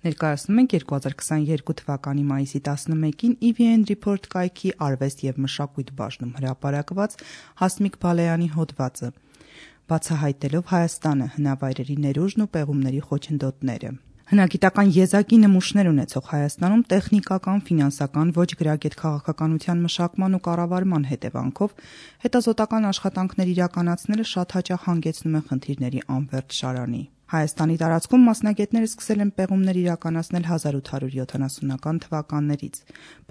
Ներկայացնում ենք 2022 թվականի մայիսի 11-ին EVN Report կայքի արվեստ և մշակույթ բաժնում հրապարակված Հասմիկ Բալայանի հոդվածը, բացահայտելով Հայաստանը, հնավայրերի ներուժն ու պեղումների խոչընդոտները։ Հնագիտական եզակի նմուշներ ունեցող Հայաստանում տեխնիկական, ֆինանսական, ոչ գրագետ քաղաքականության մշակման ու կառավարման հետևանքով հետազոտական աշխատանքներ իրականացնելը շատ հաճախ հանգեցնում է խնդիրների անվերջ շարանի։ Հայաստանի տարածքում մասնագետները սկսել են պեղումներ իրականացնել 1870-ական թվականներից։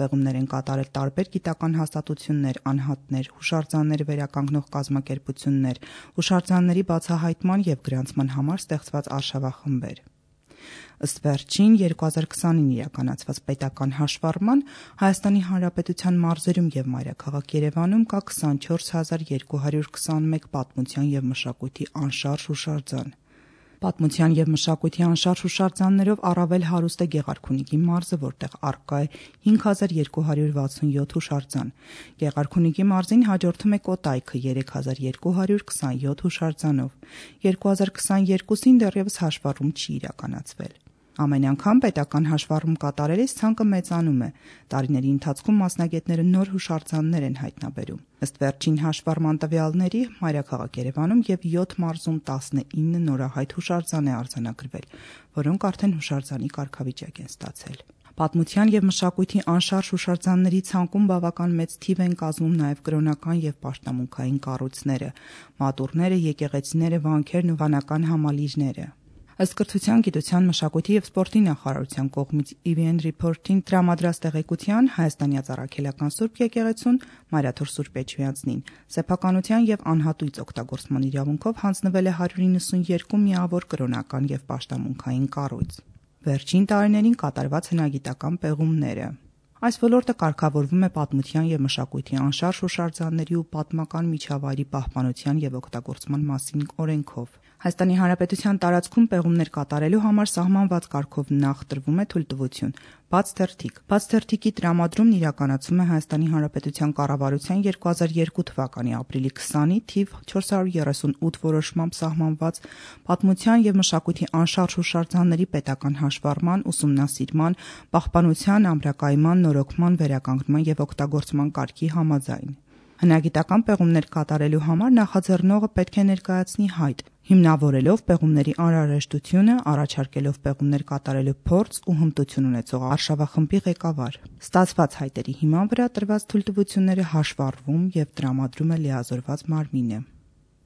Պեղումներ են կատարել տարբեր գիտական հաստատություններ, անհատներ, հուշարձաններ վերականգնող կազմակերպություններ, հուշարձանների բացահայտման և գրանցման համար ստեղծված արշավախմբեր։ Ըստ վերջին 2020-ին իրականացված պետական հաշվառման, Հայաստանի Հանրապետության մարզերում և մայրաքաղաք Երևանում կա 24221 պատմության և մշակույթի անշարժ հուշարձան։ Պատմության և մշակույթի անշարժ հուշարձաններով առավել հարուստ է Գեղարքունիքի մարզը, որտեղ առկա է 5267 հուշարձան։ Գեղարքունիքի մարզին հաջորդում է Կոտայքը 3227 հուշարձանով։ 2022-ին դեռևս հաշվառում չի իրականացվել։ Ամեն անգամ պետական հաշվառում կատարելիս ցանկը մեծանում է։ Տարիների ընթացքում մասնագետները նոր հուշարձաններ են հայտնաբերում։ Ըստ վերջին հաշվառման տվյալների, մայրաքաղաք Երևանում և 7 մարզում 19 նորահայտ հուշարձան է արձանագրվել, որոնք արդեն հուշարձանի կարգավիճակ են ստացել։ Պատմության և մշակույթի անշարժ հուշարձանների ցանկում բավական մեծ թիվ են կազմում նաև կրոնական և պաշտամունքային կառույցները, մատուռները, եկեղեցիները, վանքերն ու վանական համալիրները։ Ըստ Կրթության, գիտության, մշակույթի և սպորտի նախարարության կողմից EVN Report-ին տրամադրած տեղեկության, Հայաստանյաց Առաքելական Սուրբ եկեղեցուն Մայրաթոր Սուրբ Էջմիածնին սեփականության և անհատույց օգտագործման իրավունքով հանձնվել է 192 միավոր կրոնական և պաշտամունքային կառույց։ Վերջին տարիներին կատարված հնագիտական պեղումները։ Այս ոլորտը կարգավորվում է Պատմության և մշակույթի անշարժ հուշարձանների ու պատմական միջավայրի պահպանության և օգտագործման մասին օրենքով։ Հայաստանի Հանրապետության տարածքում պեղումներ կատարելու համար սահմանված կարգով նախ տրվում է թույլտվություն, բաց թերթիկի տրամադրումն իրականացվում է Հայաստանի Հանրապետության կառավարության 2002 թվականի ապրիլի 20-ի թիվ 438 որոշմամբ սահմանված Պատմության և մշակույթի անշարժ հուշարձանների պետական հաշվառման, ուսումնասիրման, պահպանության, ամրակայման, նորոգման, վերականգնման և օգտագործման կարգի համաձայն։ Հնագիտական պեղումներ կատարելու համար նախաձեռնողը պետք է ներկայացնի հայտ, հիմնավորելով պեղումների անհրաժեշտությունը, առաջարկելով պեղումներ կատարելու փորձ ու հմտություն ունեցող արշավախմբի ղեկավար։ Ստացված հայտերի հիման վրա տրված թույլտվությունները հաշվառվում և տրամադրում է լիազորված մարմինը։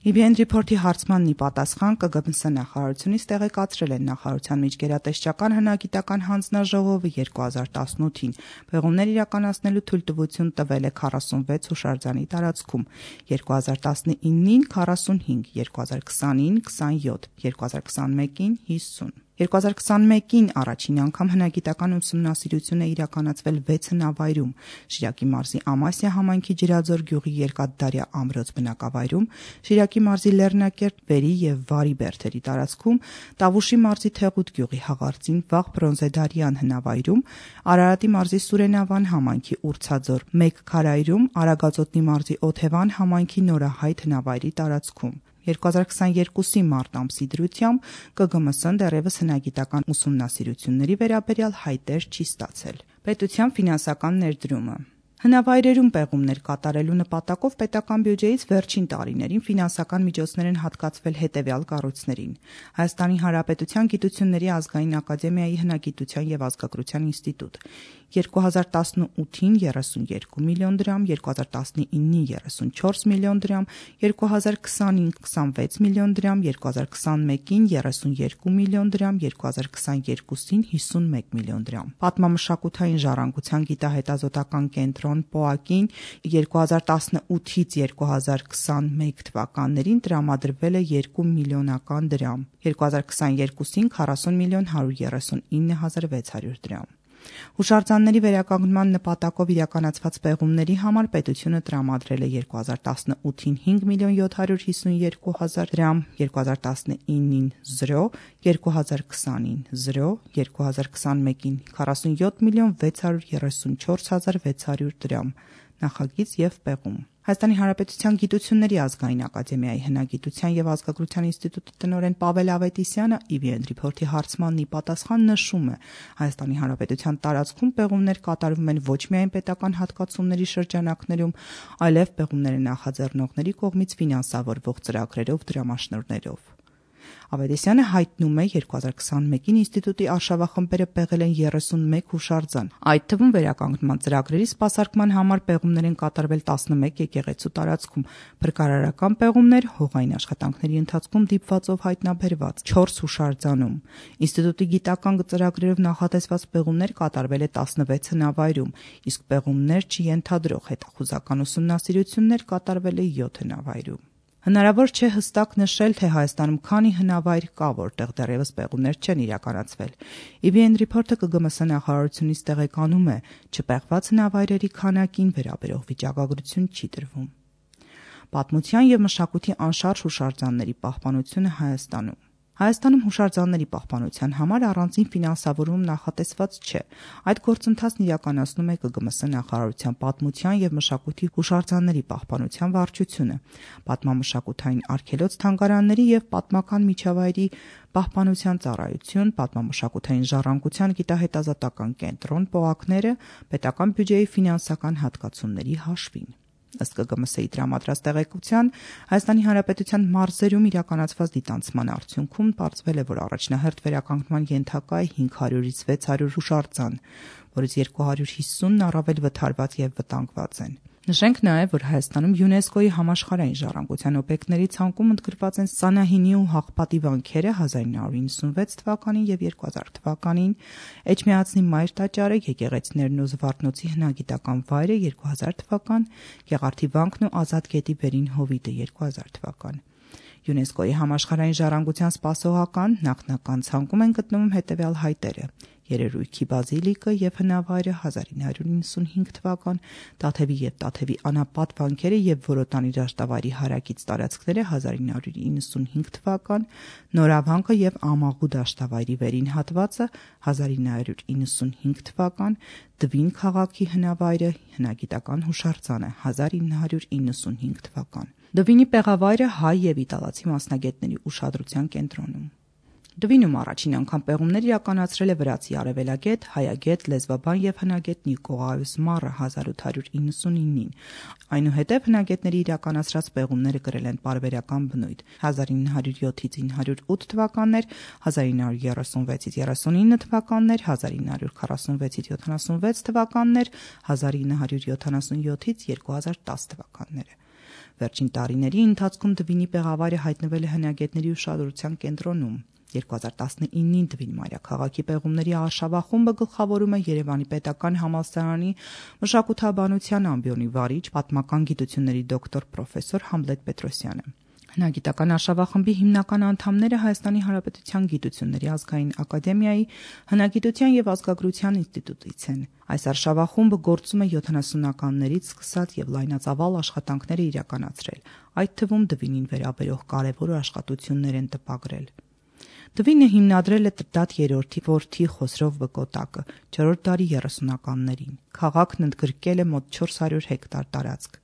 EVN Report-ի հարցմանն ի պատասխան ԿԳՄՍ նախարարությունից տեղեկացրել են նախարարության միջգերատեսչական հնագիտական հանձնաժողովը 2018-ին պեղումներ իրականացնելու թույլտվություն տվել է 46 հուշարձանի տարածքում, 2019-ին 45, 2020-ին 27, 2021-ին 50։ 2021-ին առաջին անգամ հնագիտական ուսումնասիրություն է իրականացվել 6 հնավայրում՝ Շիրակի մարզի Ամասիա համայնքի Ջրաձոր գյուղի Երկաթդարյա ամրոց բնակավայրում, Շիրակի մարզի Լեռնակերտ, Վերի և Վարի բերդերի տարածքում, Տավուշի մարզի Թեղուտ գյուղի Հաղարծին վաղ բրոնզեդարյան հնավայրում, Արարատի մարզի Սուրենավան համայնքի Ուրցաձոր 1 քարայրում, Արագածոտնի մարզի Օթևան համայնքի Նորահայտ հնավայրի տարածքում։ 2022-ի մարտ ամսի դրությամբ ԿԳՄՍ-ն դեռևս հնագիտական ուսումնասիրությունների վերաբերյալ հայտեր չի ստացել։ Պետության ֆինանսական ներդրումը։ Հնավայրերում պեղումներ կատարելու նպատակով պետական բյուջեից վերջին տարիներին ֆինանսական միջոցներ են հատկացվել հետևյալ կառույցներին՝ Հայաստանի Հանրապետության Գիտությունների ազգային ակադեմիայի հնագիտության և ազգագրության ինստիտուտ 2018-ին 32 միլիոն դրամ, 2019-ին 34 միլիոն դրամ, 2020-ին 26 միլիոն դրամ, 2021-ին 32 միլիոն դրամ, 2022-ին 51 միլիոն դրամ։ Պատմամշակութային ժառանգության գիտահետազոտական կենտրոն ՊՕԱԿ-ին 2018-ից 2021 թվականներին տրամադրվել է 2 միլիոնական դրամ, 2022-ին 40 միլիոն 139 հազար 600 դրամ։ Հուշարձանների վերականգնման նպատակով իրականացված պեղումների համար պետությունը տրամադրել է 2018-ին 5 միլիոն 752 հազար դրամ, 2019-ին 0, 2020-ին 0, 2021-ին 47 միլիոն 634 հազար 600 դրամ։ Նախագիծ և պեղում։ Հայաստանի Հանրապետության Գիտությունների ազգային ակադեմիայի հնագիտության եւ ազգագրության ինստիտուտի տնօրեն Պավել Ավետիսյանը EBN Report-ի հարցմանն ի պատասխան նշում է. Հայաստանի Հանրապետության տարածքում պեղումներ կատարվում են ոչ միայն պետական հատկացումների շրջանակներում, այլև պեղումները նախաձեռնողների կողմից ֆինանսավորվող ծրագրերով, դրամաշնորհներով։ Ավետիսյանը հայտնում է 2021-ին ինստիտուտի արշավախմբերը պեղել են 31 հուշարձան։ Այդ թվում վերականգնման ծրագրերի սպասարկման համար պեղումներ են կատարվել 11 եկեղեցու տարածքում, փրկարարական պեղումներ հողային աշխատանքների ընթացքում դիպվածով հայտնաբերված 4 հուշարձանում։ Ինստիտուտի գիտական ծրագրերով նախատեսված պեղումներ կատարվել է 16 հնավայրում, իսկ պեղումներ չյենթադրող հետախուզական ուսումնասիրություններ կատարվել է 7 հնավայրում։ Հնարավոր չէ հստակ նշել, թե Հայաստանում քանի հնավայր կա, որտեղ դեռևս պեղումներ չեն իրականացվել։ EBN Report-ը ԿԳՄՍ նախարարությունից տեղեկանում է, չպեղված հնավայրերի քանակին վերաբերող վիճակագրություն չի տրվում։ Պատմության եւ մշակույթի անշարժ հուշարձանների պահպանությունը Հայաստանում։ Հայաստանում հուշարձանների պահպանության համար առանձին ֆինանսավորում նախատեսված չէ։ Այդ գործընթացն իրականացնում է ԿԳՄՍ նախարարության պատմության եւ մշակույթի հուշարձանների պահպանության վարչությունը, պատմամշակութային արգելոց-թանգարանների եւ պատմական միջավայրի պահպանության ծառայություն, պատմամշակութային ժառանգության գիտահետազոտական կենտրոն, ՊՕԱԿ-ները պետական բյուջեի ֆինանսական հատկացումների հաշվին։ Ըստ ԿԳՄՍ-ի տրամադրած տեղեկության, Հայաստանի Հանրապետության մարզերում իրականացված դիտանցման արդյունքում պարզվել է, որ առաջնահերթ վերականգնման ենթակա է 500-ից 600 հուշարձան, որից 250-ն առավել վթարված եւ վտանգված են։ Նշենք նաև, որ Հայաստանում ՅՈՒՆԵՍԿՕ-ի համաշխարհային ժառանգության օբյեկտների ցանկում ընդգրկված են Սանահինի ու Հաղպատի վանքերը 1996 թվականին եւ 2000 թվականին, Էջմիածնի Մայր տաճարը, եկեղեցիներն ու Զվարթնոցի հնագիտական վայրը 2000 թվական, Գեղարդի վանքն ու Ազատ գետի վերին հովիտը 2000 թվական։ ՅՈՒՆԵՍԿՕ-ի համաշխարհային ժառանգության սպասողական նախնական ցանկում են գտնվում հետևյալ հայտերը. Երերույքի բազիլիկը եւ հնավայրը 1995 թվական, Տաթևի եւ Տաթևի անապատ վանքերը եւ Որոտանի դաշտավայրի հարակից տարածքները 1995 թվական, Նորավանքը եւ Ամաղու դաշտավայրի վերին հատվածը 1995 թվական, Դվին քաղաքի հնավայրը հնագիտական հուշարձանը 1995 թվական։ Դվինի պեղավայրը հայ եւ իտալացի մասնագետների ուշադրության կենտրոնում։ Դվինում առաջին անգամ պեղումներ իրականացրել է վրացի արևելագետ, հայագետ, լեզվաբան եւ հնագետ Նիկողայոս Մարը 1899-ին։ Այնուհետև հնագետների իրականացրած պեղումները կրել են պարբերական բնույթ 1907-ից 908 թվականներ, 1936-ից 39 թվականներ, 1946-ից 76 թվականներ, 1977-ից 2010 թվականները։ Վերջին տարիների ընթացքում Դվինի պեղավայրը հայտնվել է հնագետների ուշադրության կենտրոնում։ 2019-ին Դվին մայրաքաղաքի պեղումների արշավախումբը գլխավորում է Երևանի պետական համալսարանի մշակութաբանության ամբիոնի վարիչ, պատմական գիտությունների դոկտոր պրոֆեսոր Համլետ Պետրոսյանը։ Հնագիտական արշավախմբի հիմնական անդամները Հայաստանի Հանրապետության Գիտությունների ազգային ակադեմիայի հնագիտության եւ ազգագրության ինստիտուտից են։ Այս արշավախումբը գործում է 70-ականներից սկսած եւ լայնածավալ աշխատանքներ է իրականացրել, այդ թվում Դվինին վերաբերող կարևոր աշխատություններ են տպագրել։ Դվինը հիմնադրել է Տրդատ III որդի Խոսրով Բկոտակը 4-րդ դարի 30-ականներին։ Քաղաքն ընդգրկել է մոտ 400 հեկտար տարածք։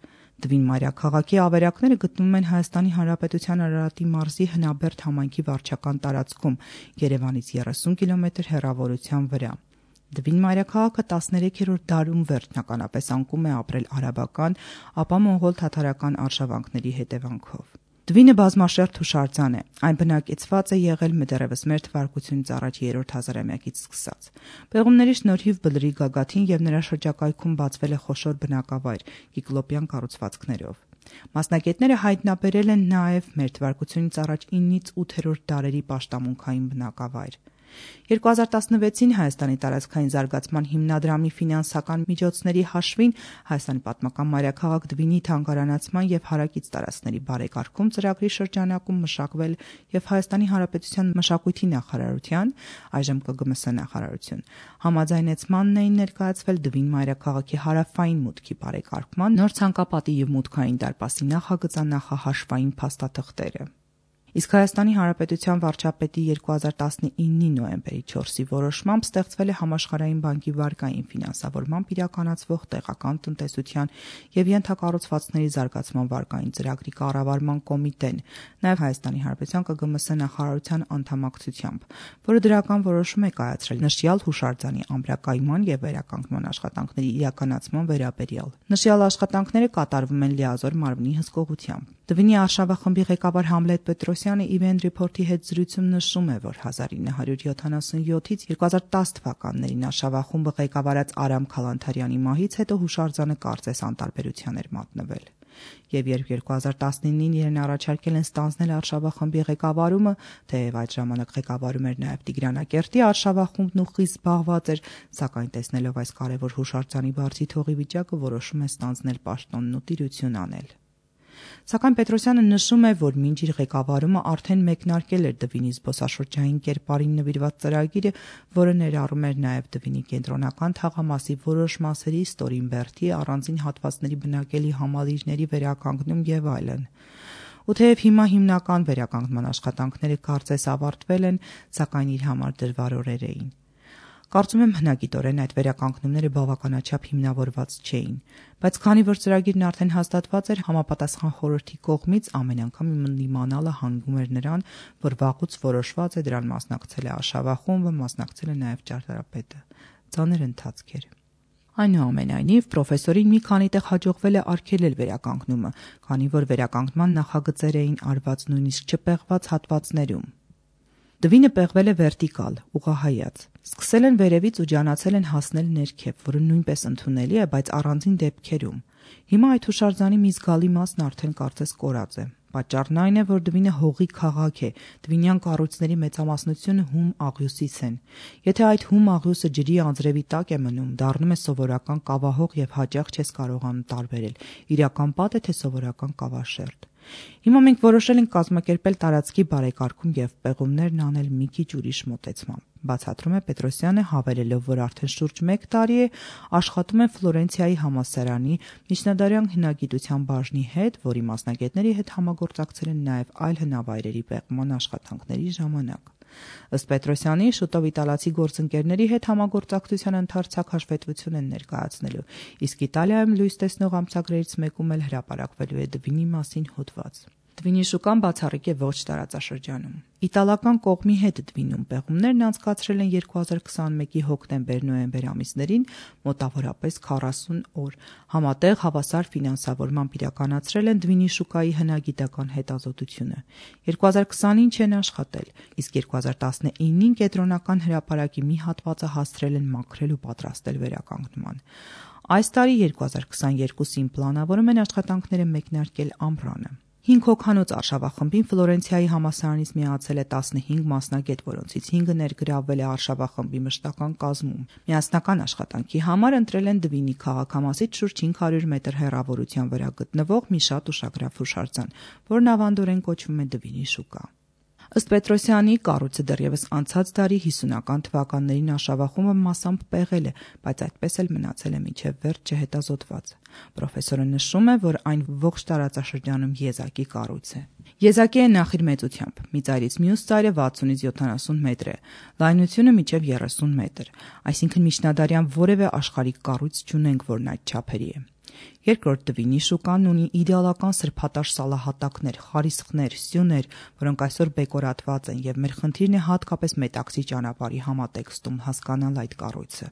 Դվին մայրաքաղաքի ավերակները գտնվում են Հայաստանի Հանրապետության Արարատի մարզի Հնաբերդ համայնքի վարչական տարածքում, Երևանից 30 կիլոմետր հեռավորության վրա։ Դվին մայրաքաղաքը 13-րդ դարում վերջնականապես անկում է ապրել արաբական, ապա մոնղոլ-թաթարական արշավանքների հետևանքով։ Դվինը բազմաշերտ հուշարձան է, այն բնակեցված է եղել դեռևս մեր թվարկությունից առաջ 3-րդ հազարամյակից սկսած։ Պեղումների շնորհիվ Բլրի գագաթին եւ նրա շրջակայքում բացվել է խոշոր բնակավայր կիկլոպյան կառուցվածքներով։ Մասնագետները հայտնաբերել են նաև մեր թվարկությունից առաջ 9-ից 8-րդ դարերի պաշտամունքային բնակավայր։ 2016-ին Հայաստանի տարածքային զարգացման հիմնադրամի ֆինանսական միջոցների հաշվին Հայաստանի պատմական մայրաքաղաք Դվինի թանգարանացման եւ հարակից տարածքների բարեկարգում ծրագրի շրջանակում մշակվել եւ Հայաստանի Հանրապետության մշակույթի նախարարության, այժմ ԿԳՄՍ նախարարություն, համաձայնեցմանն էին ներկայացվել Դվին մայրաքաղաքի հարավային մուտքի բարեկարգման նոր ցանկապատի եւ մուտքային դարպասի նախագծանախահաշվային փաստաթղթերը։ Իսկ Հայաստանի Հանրապետության վարչապետի 2019 նոյեմբերի 4-ի որոշմամբ ստեղծվել է Համաշխարհային բանկի վարկային ֆինանսավորմամբ իրականացվող տեղական տնտեսության եւ ենթակառուցվածքների զարգացման վարկային ծրագրի կառավարման կոմիտեն, նաեւ Հայաստանի Հանրապետության ԿԳՄՍ նախարարության անդամակցությամբ, որը դրական որոշում է կայացրել նշյալ հուշարձանի ամրակայման եւ վերականգնման աշխատանքների իրականացման վերաբերյալ։ Նշյալ աշխատանքները կատարվում են լիազոր մարմնի հսկողությամբ։ Դվինի արշավախմբի ղեկավար Համլետ Պետրոսյանը Event Report-ի հետ զրույցում նշում է, որ 1977-ից 2010 թվականներին արշավախումբը ղեկավարած Արամ Քալանթարյանի մահից հետո հուշարձանը կարծես անտարբերության էր մատնվել։ Եվ երբ 2019-ին իրեն առաջարկել են ստանձնել արշավախմբի ղեկավարումը, թեև այդ ժամանակ ղեկավարում էր նաև Տիգրանակերտի արշավախումբն ու խիստ զբաղված էր, սակայն տեսնելով այս կարևոր հուշարձանի բարձի թողի վիճակը որոշում է ստանձնել պաշտոնն ու տիրություն անել։ Սակայն Պետրոսյանը նշում է, որ մինչ իր ղեկավարումը արդեն մեկնարկել էր Դվինի զբոսաշրջային կերպարին նվիրված ծրագիրը, որը ներառում էր նաև Դվինի կենտրոնական թաղամասի որոշ մասերի, Ստորին առանձին հատվածների բնակելի համալիրների վերականգնում եւ այլն։ Ու թեև հիմա հիմնական վերականգնման աշխատանքները կարծես ավարտվել են, սակայն իր համար դժվար օրեր էին։ Կարծում եմ հնագիտորեն այդ վերականգնումները բավականաչափ հիմնավորված չէին, բայց քանի որ ծրագիրն արդեն հաստատված էր, համապատասխան խորհրդի կողմից ամեն անգամ իմանալը հանգում էր նրան, որ վաղուց որոշված է դրան մասնակցել է արշավախումբը, մասնակցել է նաև ճարտարապետը։ Ծանր ընթացք էր։ Այնուամենայնիվ, պրոֆեսորին մի քանի տեղ հաջողվել է արգելել վերականգնումը, քանի որ վերականգնման նախագծեր էին արված նույնիսկ չպեղված հատվածներում։ Դվինը պեղվել է վերտիկալ, ուղղահայաց։ Սկսել են վերևից ու ջանացել են հասնել ներքև, որը նույնպես ընդունելի է, բայց առանձին դեպքերում։ Հիմա այդ հուշարձանի մի զգալի մասն արդեն կարծես կորած է։ Պատճառն այն է, որ Դվինը հողի քաղաք է, դվինյան կառույցների մեծամասնությունը հում աղյուսից են։ Եթե այդ հում աղյուսը ջրի անձրևի տակ է մնում, դառնում է սովորական կավահող եւ հաճախ չես կարողանում տարբերել՝ իրական պատ է թե սովորական կավաշերտ։ Հիմա մենք որոշել ենք կազմակերպել տարածքի բարեկարգում եւ պեղումներն անել մի քիչ ուրիշ մոտեցմամբ։ Բացատրում է Պետրոսյանը, հավելելով, որ արդեն շուրջ 1 տարի է աշխատում են Ֆլորենցիայի համալսարանի միջնադարյան հնագիտության բաժնի հետ, որի մասնագետների հետ համագործակցել են նաև այլ հնավայրերի պեղման աշխատանքների ժամանակ։ Ըստ Պետրոսյանի, շուտով իտալացի գործընկերների հետ համագործակցության ընդարձակ հաշվետվություն են ներկայացնելու, իսկ Իտալիայում լույս տեսնող ամսագրերից մեկում էլ հրապարակվելու է Դվինի մասին հոդված։ Դվինի շուկան բացառիկ է ոչ տարածաշրջանում։ Իտալական կողմի հետ Դվինում պեղումներն անցկացրել են 2021-ի հոկտեմբեր-նոյեմբեր ամիսներին մոտավորապես 40 օր։ Համատեղ հավասար ֆինանսավորմամբ իրականացրել են Դվինի շուկայի հնագիտական հետազոտությունը։ 2020-ին չեն աշխատել, իսկ 2019-ին կենտրոնական հրապարակի մի հատվածը հասցրել են մաքրել ու պատրաստել վերականգնման։ Այս տարի 2022-ին պլանավորում են աշխատանքները մեկնարկել ամռանը։ 5 հոգանոց արշավախմբին Ֆլորենցիայի համալսարանից միացել է 15 մասնագետ, որոնցից 5-ը ներգրավվել է արշավախմբի մշտական կազմում։ Միասնական աշխատանքի համար ընտրել են Դվինի քաղաքամասից շուրջ 500 մետր հեռավորության վրա գտնվող մի շատ ուշագրավ հուշարձան, որն ավանդորեն կոչվում է Դվինի շուկա։ Ըստ Պետրոսյանի, կառույցը դեռևս անցած դարի 50-ական թվականներին արշավախումբը մասամբ պեղել է, բայց այդպես էլ մնացել է մինչև վերջ չհետազոտված։ Պրոֆեսորը նշում է, որ այն ողջ տարածաշրջանում եզակի կառույց է։ Եզակի է նախ իր մեծությամբ՝ մի ծայրից մյուս ծայրը 60-ից 70 մետր է, լայնությունը մինչև 30 մետր, այսինքն միջնադարյան որևէ աշխարհիկ կառույց չունենք, որն այդ չափերի է։ Երկրորդ Դվինի շուկան ունի իդեալական սրբատաշ սալահատակներ, խարիսխներ, սյուներ, որոնք այսօր բեկորատված են, եւ մեր խնդիրն է հատկապես Մետաքսի ճանապարհի համատեքստում հասկանալ այդ կառույցը։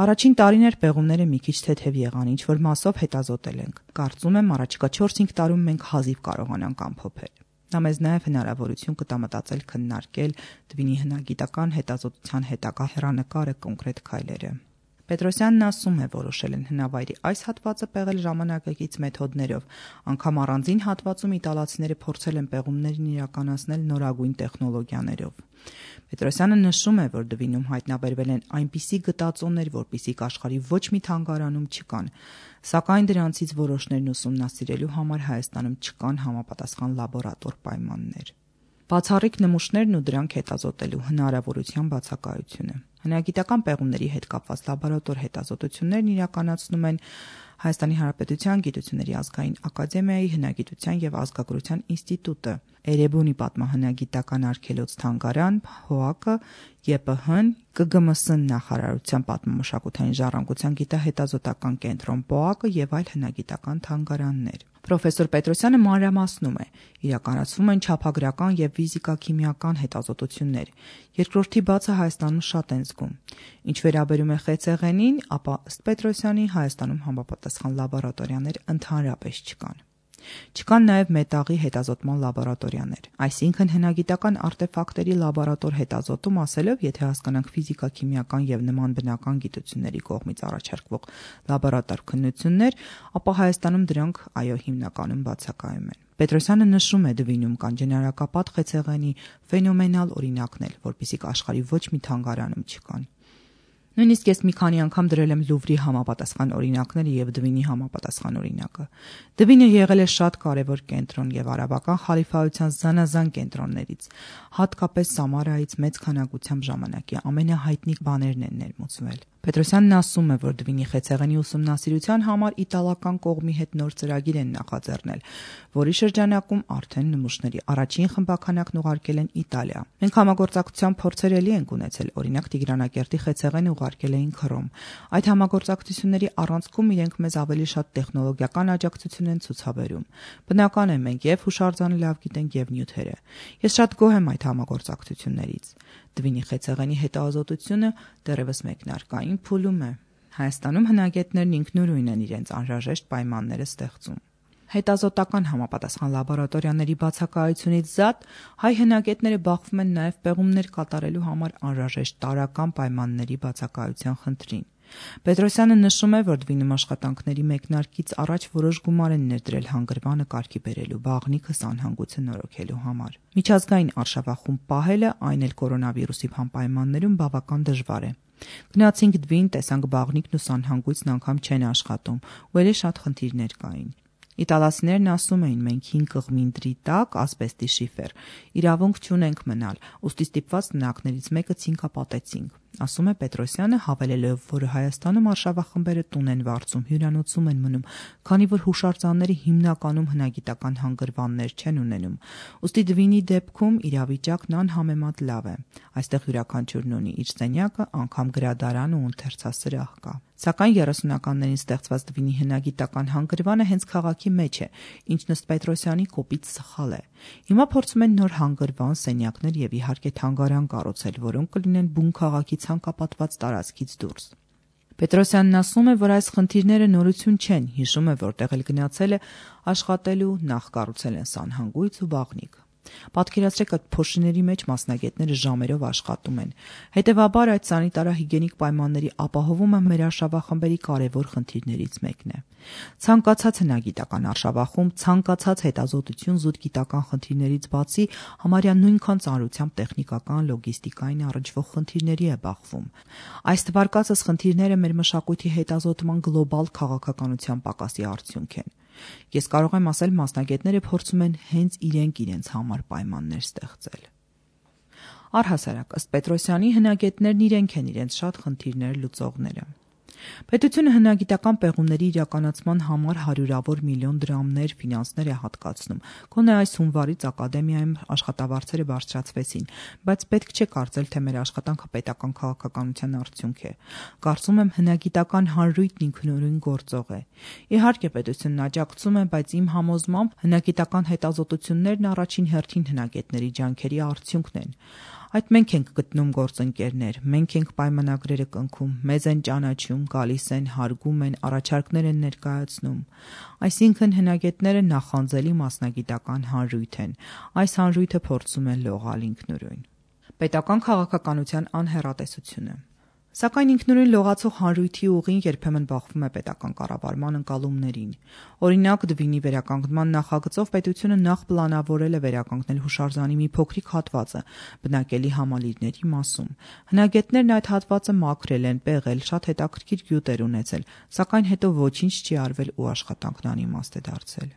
Առաջին տարիներ պեղումները մի քիչ թեթև եղան, ինչ որ մասով հետազոտել ենք։ Կարծում եմ, առաջիկա 4-5 տարում մենք հազիվ կարողանանք ամփոփել։ Դա մեզ նաև հնարավորություն կտա մտածել քննարկել Դվինի հնագիտական հետազոտության հետագա հեռանկարը, կոնկրետ քայլերը։ Պետրոսյանն ասում է, որոշել են հնավայրի այս հատվածը պեղել ժամանակակից մեթոդներով, անգամ առանձին հատվածում իտալացիները փորձել են պեղումներն իրականացնել նորագույն տեխնոլոգիաներով։ Պետրոսյանը նշում է, որ Դվինում հայտնաբերվել են այնպիսի գտածոներ, որպիսիք աշխարհի ոչ մի թանգարանում չկան, սակայն դրանցից որոշներն ուսումնասիրելու համար Հայաստանում չկան համապատասխան լաբորատոր պայմաններ։ Բացառիկ նմուշներն ու դրանք հետազոտելու հնարավորության բացակայությունը։ Հնագիտական պեղումների հետ կապված լաբորատոր հետազոտություններն իրականացնում են Հայաստանի Հանրապետության Գիտությունների ազգային ակադեմիայի հնագիտության և ազգագրության ինստիտուտը, Էրեբունի պատմահնագիտական արգելոց թանգարան, ՀՕԱԿ-ը, ԵՊՀ-ն, ԿԳՄՍ նախարարության պատմամշակութային ժառանգության գիտահետազոտական կենտրոն ՊՕԱԿ-ը և այլ հնագիտական թանգարաններ։ Պրոֆեսոր Պետրոսյանը մանրամասնում է. իրականացվում են չափագրական և ֆիզիկա-քիմիական հետազոտություններ։ Երկրորդի բացը Հայաստանում շատ են զգում։ Ինչ վերաբերում է խեցեղենին, ապա ըստ Պետրոսյանի Հայաստանում համապատասխան լաբորատորիաներ ընդհանրապես չկան։ Չկան նաև մետաղի հետազոտման լաբորատորիաներ, այսինքն հնագիտական արտեֆակտերի լաբորատոր հետազոտում ասելով, եթե հասկանանք ֆիզիկա-քիմիական և նման բնական գիտությունների կողմից առաջարկվող լաբորատոր քննություններ, ապա Հայաստանում դրանք հիմնականում բացակայում են։ Պետրոսյանը նշում է Դվինում կան ջնարակապատ խեցեղենի ֆենոմենալ օրինակներ, որպիսիք աշխարհի ոչ մի թանգարանում չկան։ Նույնիսկ ես մի քանի անգամ դրել եմ Լուվրի համապատասխան օրինակները և Դվինի համապատասխան օրինակը։ Դվինը եղել է շատ կարևոր կենտրոն և արաբական խալիֆայության զանազան կենտրոններից, հատկապես Սամարայից մեծ քանակությամբ ժամանակի ամենահայտնի բաներն են ներմուծվել։ Պետրոսյանն ասում է, որ Դվինի խեցեղենի ուսումնասիրության համար իտալական կողմի հետ նոր ծրագիր են նախաձեռնել, որի շրջանակում արդեն նմուշների առաջին խմբաքանակն ուղարկել են Իտալիա։ Մենք համագործակցության փորձեր էլի ենք ունեցել, օրինակ Տիգրանակերտի խեցեղենը ուղարկել էին Քրոմ։ Այդ համագործակցությունների առանցքում իրենք մեզ ավելի շատ տեխնոլոգիական աջակցություն են ցուցաբերում։ Բնական է, մենք և հուշարձանը լավ գիտենք, և նյութերը։ Ես շատ գոհ եմ այդ համագործակցություններից։ Դվինի խեցեղենի հետազոտությունը դեռևս մեկնարկային փուլում է։ Հայաստանում հնագետներն ինքնուրույն են իրենց անհրաժեշտ պայմանները ստեղծում։ Հետազոտական համապատասխան լաբորատորիաների բացակայությունից զատ հայ հնագետները բախվում են նաև պեղումներ կատարելու համար անհրաժեշտ տարրական պայմանների բացակայության խնդրին։ Պետրոսյանը նշում է, որ Դվինում աշխատանքների մեկնարկից առաջ որոշ գումար են ներդրել հանգրվանը կարգի բերելու, բաղնիքը սանհանգույցը նորոգելու համար։ Միջազգային արշավախումբ պահելը, այն էլ կորոնավիրուսի պայմաններում բավական դժվար է։ Գնացինք Դվին, տեսանք բաղնիքն ու սանհանգույցն անգամ չեն աշխատում, ու էլի շատ խնդիրներ կային։ Իտալացիներն ասում էին, մենք 5 կղմինդրի տակ ասբեստի շիֆեր, իրավունք չունենք մնալ, ուստի ստիպված տնակներից մեկը ցինկապատեցինք, ասում է Պետրոսյանը, հավելելով, որ Հայաստանում արշավախմբերը տուն են վարձում, հյուրանոցում են մնում, քանի որ հուշարձանները հիմնականում հնագիտական հանգրվաններ չեն ունենում, ուստի Դվինի դեպքում իրավիճակն անհամեմատ լավ է, այստեղ յուրաքանչյուրն ունի իր սենյակը, անգամ գրադարան ու ընթերցասրահ կա։ Սակայն 30-ականներին ստեղծված Դվինի հնագիտական հանգրվանը հենց քաղաքի մեջ է, ինչն ըստ Պետրոսյանի կոպիտ սխալ է։ Հիմա փորձում են նոր հանգրվան, սենյակներ և իհարկե թանգարան կառուցել, որոնք կլինեն բուն քաղաքի ցանկապատված տարածքից դուրս։ Պետրոսյանն ասում է, որ այս խնդիրները նորություն չեն, հիշում է, որտեղ էլ գնացել է աշխատելու, նախ կառուցել են սանհանգույց ու բաղնիք։ Պատկերացրեք, այդ փոշիների մեջ մասնագետները ժամերով աշխատում են։ Հետևաբար այդ սանիտարահիգիենիկ պայմանների ապահովումը մեր արշավախմբերի կարևոր խնդիրներից մեկն է։ Ցանկացած հնագիտական արշավախումբ, ցանկացած հետազոտություն զուտ գիտական խնդիրներից բացի համարյա նույնքան ծանրությամբ տեխնիկական, լոգիստիկային առնչվող խնդիրների է բախվում։ Այս թվարկածս խնդիրները մեր մշակույթի հետազոտման գլոբալ քաղաքականության պակասի արդյունք են։ Ես կարող եմ ասել, մասնագետները փորձում են հենց իրենց համար պայմաններ ստեղծել։ Առհասարակ, ըստ Պետրոսյանի, հնագետներն իրենք են իրենց շատ խնդիրներ լուծողները։ Պետությունը հնագիտական պեղումների իրականացման համար հարյուրավոր միլիոն դրամներ ֆինանսներ է հատկացնում։ Գոնե այս հունվարից ակադեմիայում աշխատավարձերը բարձրացվեցին, բայց պետք չէ կարծել, թե մեր աշխատանքը պետական քաղաքականության արդյունք է։ Կարծում եմ, հնագիտական հանրույթն ինքնուրույն գործող է։ Իհարկե, պետությունն աջակցում է, բայց իմ համոզմամբ հնագիտական հետազոտություններն առաջին հերթին հնագետների ջանքերի արդյունքն են։ Այդ մենք ենք գտնում գործընկերներ, մենք ենք պայմանագրերը կնքում, մեզ են ճանաչում, գալիս են, հարգում են, առաջարկներ են ներկայացնում։ Այսինքն հնագետները նախանձելի մասնագիտական հանրույթ են։ Այս հանրույթը փորձում է լողալ ինքնուրույն։ Պետական քաղաքականության անհեռատեսությունը։ Սակայն ինքնուրույն լողացող հանրույթի ուղին երբեմն բախվում է պետական կառավարման ընկալումներին։ Օրինակ, Դվինի վերականգնման նախագծով պետությունը նախ պլանավորել է վերականգնել հուշարձանի մի փոքրիկ հատվածը բնակելի համալիրների մասում։ Հնագետներն այդ հատվածը մաքրել են, պեղել, շատ հետաքրքիր գյուտեր ունեցել, սակայն հետո ոչինչ չի արվել ու աշխատանքն անիմաստ է դարձել։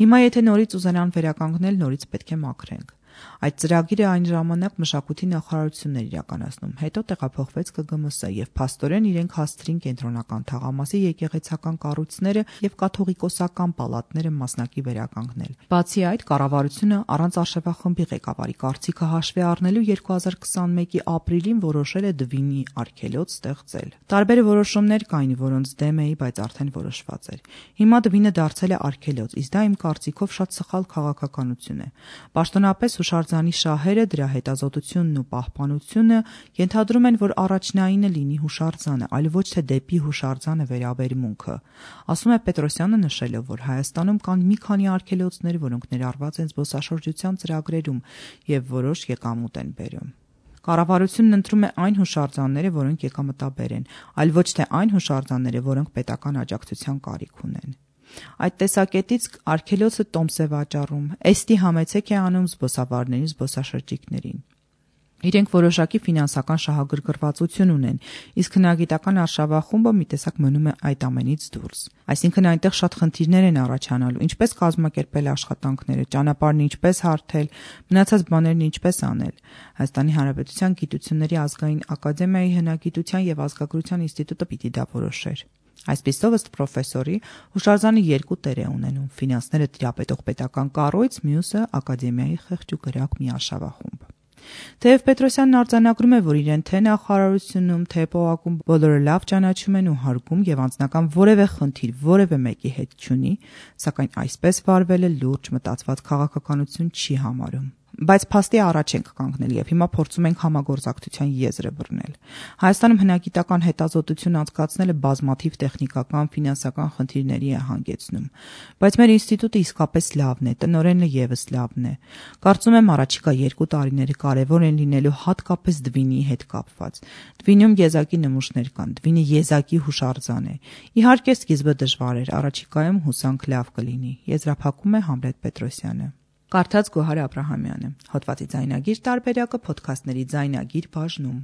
Հիմա եթե նորից ուզենան վերականգնել, նորից պետք է մաքրենք։ Այդ ծրագիրը այն ժամանակ մշակույթի նախարարությունն էր իրականացնում, հետո տեղափոխվեց ԿԳՄՍ եւ փաստորեն իրենք հասցրին կենտրոնական թաղամասի եկեղեցական կառույցները եւ կաթողիկոսական պալատները մասնակի վերականգնել։ Բացի այդ, կառավարությունը առանց արշավախմբի ղեկավարի կարծիքը հաշվի առնելու 2021-ի ապրիլին որոշել է Դվինի արգելոց ստեղծել։ Տարբեր որոշումներ կային, որոնց դեմ էի, բայց արդեն որոշված էր։ Հիմա Դվինը դարձել է արգելոց, իսկ դա իմ կարծիքով շատ սխալ քաղաքականություն է։ Պաշտոնապես հուշարձանի շահերը, դրա հետազոտությունն ու պահպանությունը ենթադրում են, որ առաջնայինը լինի հուշարձանը, այլ ոչ թե դեպի հուշարձանը վերաբերմունքը։ Ասում է Պետրոսյանը նշելով, որ Հայաստանում կան մի քանի արգելոցներ, որոնք ներառված են զբոսաշրջության ծրագրերում եւ որոշ եկամուտ են բերում։ Կառավարությունն ընտրում է այն հուշարձանները, որոնք եկամտաբեր են, այլ ոչ թե այն հուշարձանները, որոնք պետական աջակցության կարիք ունեն։ Այդ տեսակետից արգելոցը տոմս է վաճառում, էստի համեցեք է անում զբոսավարներին, զբոսաշրջիկներին։ Իրենք որոշակի ֆինանսական շահագրգռվածություն ունեն, իսկ հնագիտական արշավախումբը մի տեսակ մնում է այդ ամենից դուրս։ Այսինքն այնտեղ շատ խնդիրներ են առաջանալու, ինչպես կազմակերպել աշխատանքները, ճանապարհն ինչպես հարթել, մնացած բաներն ինչպես անել։ Հայաստանի Հանրապետության Գիտությունների ազգային ակադեմիայի հնագիտության եւ ազգագրության ինստիտուտը պիտի դա որոշեր։ Այսպիսով ըստ պրոֆեսորի հուշարձանը երկու տեր է ունենում՝ ֆինանսները տիրապետող պետական կառույց, մյուսը ակադեմիայի խեղճ ու կրակ մի արշավախումբ։ Թեև Պետրոսյանն արձանագրում է, որ իրեն թե նախարարությունում, թե ՊՕԱԿ-ում բոլորը լավ ճանաչում են ու հարգում եւ անձնական որևէ խնդիր որևէ մեկի հետ չունի, սակայն այսպես վարվելը լուրջ մտածված քաղաքականություն չի համարում։ Բայց փաստի առաջ ենք կանգնել եւ հիմա փորձում ենք համագործակցության եզրը բռնել։ Հայաստանում հնագիտական հետազոտություն անցկացնելը բազմաթիվ տեխնիկական, ֆինանսական խնդիրների է հանգեցնում, բայց մեր ինստիտուտը իսկապես լավն է, տնօրենը եւս լավն է։ Կարծում եմ առաջիկա 2 տարիները կարևոր են լինելու հատկապես Դվինի հետ կապված։ Դվինում եզակի նմուշներ կան, Դվինը եզակի հուշարձան է։ Իհարկե սկիզբը դժվար էր, առաջիկայում հուսանք լավ կլինի։ Եզրափակում է Համլետ Պետրոսյանը։ Կարդաց Գոհար Աբրահամյանը։ Հոդվածի ձայնագիր տարբերակը փոդքասթների ձայնագիր բաժնում։